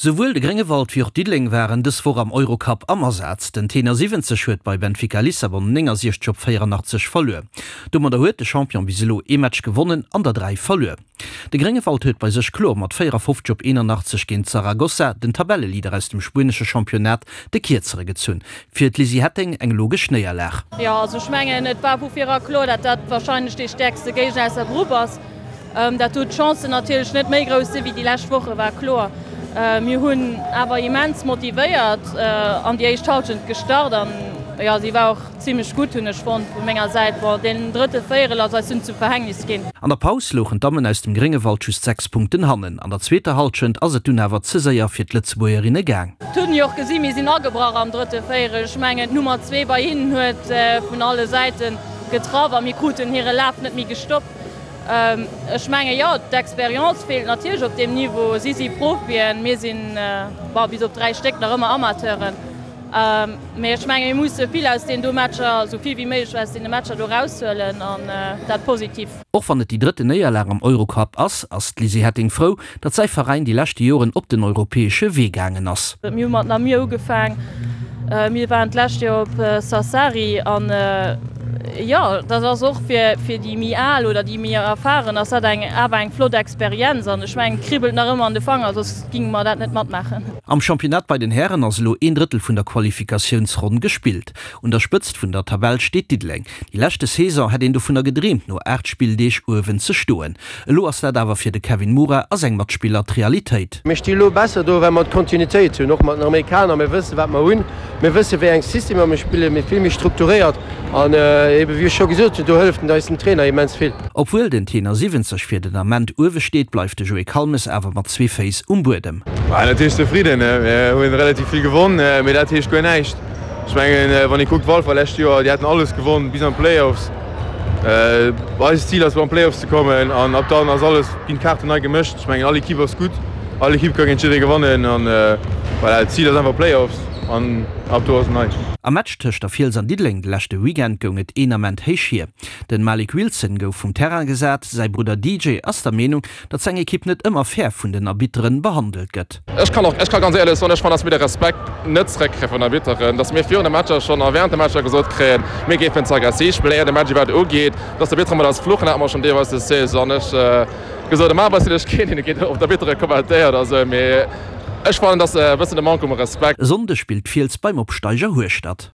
Souwuel de Gréngewald wéi och Diddeleng waren dës Woch am Eurocup am Asaz. Den Tenor 70 huet bei Benfica Lissabon 69 op 84 verluer. Domadder huet de Champion bis elo ee Match gewonnen an der 3 verluer. De Gréngewald huet bei sech kloer mat 54 op 81 géint Zaragoza, den Tabelleleader aus dem spuenesche Championnat, de Kierzere gezunn. Fir d'Lizzy Hetting eng logesch Néierlag. Jo, also ech mengen et war vu vir era kloer, dat dat warscheinlech dee stäerkste Géigner aus der Grupp ass. Dat do d'Chancen natierlech net méi grouss si wéi déi lescht Woche war kloer. Mir hunn awer immens motivéiert an déi éischt Halschent gestart an jo, si war och zimmlech gutt, hunn ech fonnt vu menger Säit. Bon, deen drëtte Véierel ass eis dunn zum Verhängnis ginn. An der Paus louchen d'Dammen aus dem Gréngewald just 6 Punkten hannen. An der zweeter Halschent ass et dunn awer ze séier fir d'Lëtzebuergerinne gaang. Et hunn jo och gesi mir sinn agebrach am drëtte Véierel. Ech mengen d'Nummer 2 bei hinnen huet vun alle Säite getraff a mir kruten hire Laf net méi gestoppt. Ech menge jo, d'Expérience feelt natierlech op deem Niveau. Si si Profien, mir sinn, bon, bis op 3 Stéck nach ëmmer Amateuren. Mee ech menge mir musse vill aus deenen do Matcher, esou vill wéi méiglech aus deene Matcher do eraushuelen an dat positiv. Och wann et déi drëtten Néierlag am Eurocup ass, ass d'Lizzy Hetting frou, datt säi Veräin déi leschte Joren op den europäesche Wee gaangen ass. Mir hu mat Namur ugefaang, mir waren d'lescht Joer op Sassari an jo, dat ass och fir déi méi al oder déi méi erfahren ass dat eng awer eng flott Experienz an ech mengen et kribbelt nach ëmmer an de Fanger, soss géinge mer dat net matmaachen. Am Championnat bei den Hären ass elo een Drëttel vun der Qualifikatiounsronn gespillt. Un der Spëtzt vun der Tabell steet Diddeleng. Déi leschte Saison hätt een dovunner gedreemt no 8 Spilldeeg uewen ze stoen. Elo ass dat awer fir de Kevin Mura a seng Matspiller d'Realitéit. Mir sti lo besser do, well mer d'Kontinuitéit hunn, och mat den Amerikaner. Mir wëssen, wat mer hunn. Mir wëssen, wéi eng Systemer mir spillen. Mir vill méi strukturéiert. An ebe wéi ech scho gesot hunn, do hëlleft eis den Trainer immens vill. Obwuel den Tenor 70 fir den Ament uewe steet, bleift de Joé Kalmes awer mat zwee Féiss um Buedem. Natierlech zefridden. Mir hunn relativ vill gewonn, mee dat heescht guer näischt. Ech mengen, wann ee kuckt, Walfer lescht Joer, déi haten alles gewonn bis an d'Playoffs. Eist Zil ass elo an d'Playoffs ze kommen an ab dann ass alles, ginn d'Kaarten nei gemëscht. Ech mengen all Ekipp ass gutt, all Ekipp ka géint jidderee gewannen an voilà, d'Zil ass einfach Playoffs an ab do ass et nei. Am Match tëscht der Fiels an Diddeleng de leschte Weekend goung et een Ament héich hier. Den Malik Wilson gouf vum Terrain gesat, säi Brudder DJ ass der Meenung, datt seng Ekipp net ëmmer fair vun den Arbitteren behandelt gëtt. Ech kann och, ech ka ganz éierlech soen, ech fannen, dass mir de Respekt net zeréckkréie vun den Arbitteren, dass mir virun de Matcher schonn a während de Matcher gesot kréien, mir géifen ze aggressiv spillen, éier de Match iwwerhaapt ugeet, dass d'Arbittere mat eis fluchen, hat mer schonn deelweis des Saison. Ech gesot, normal sinn ech keen, deen géint op d'Arbittere kommentéiert a sou, mee ech fannen, dass e bëssen de Manque um Respekt. E Sonndeg spillt d'Fiels beim Opsteiger Hueschtert.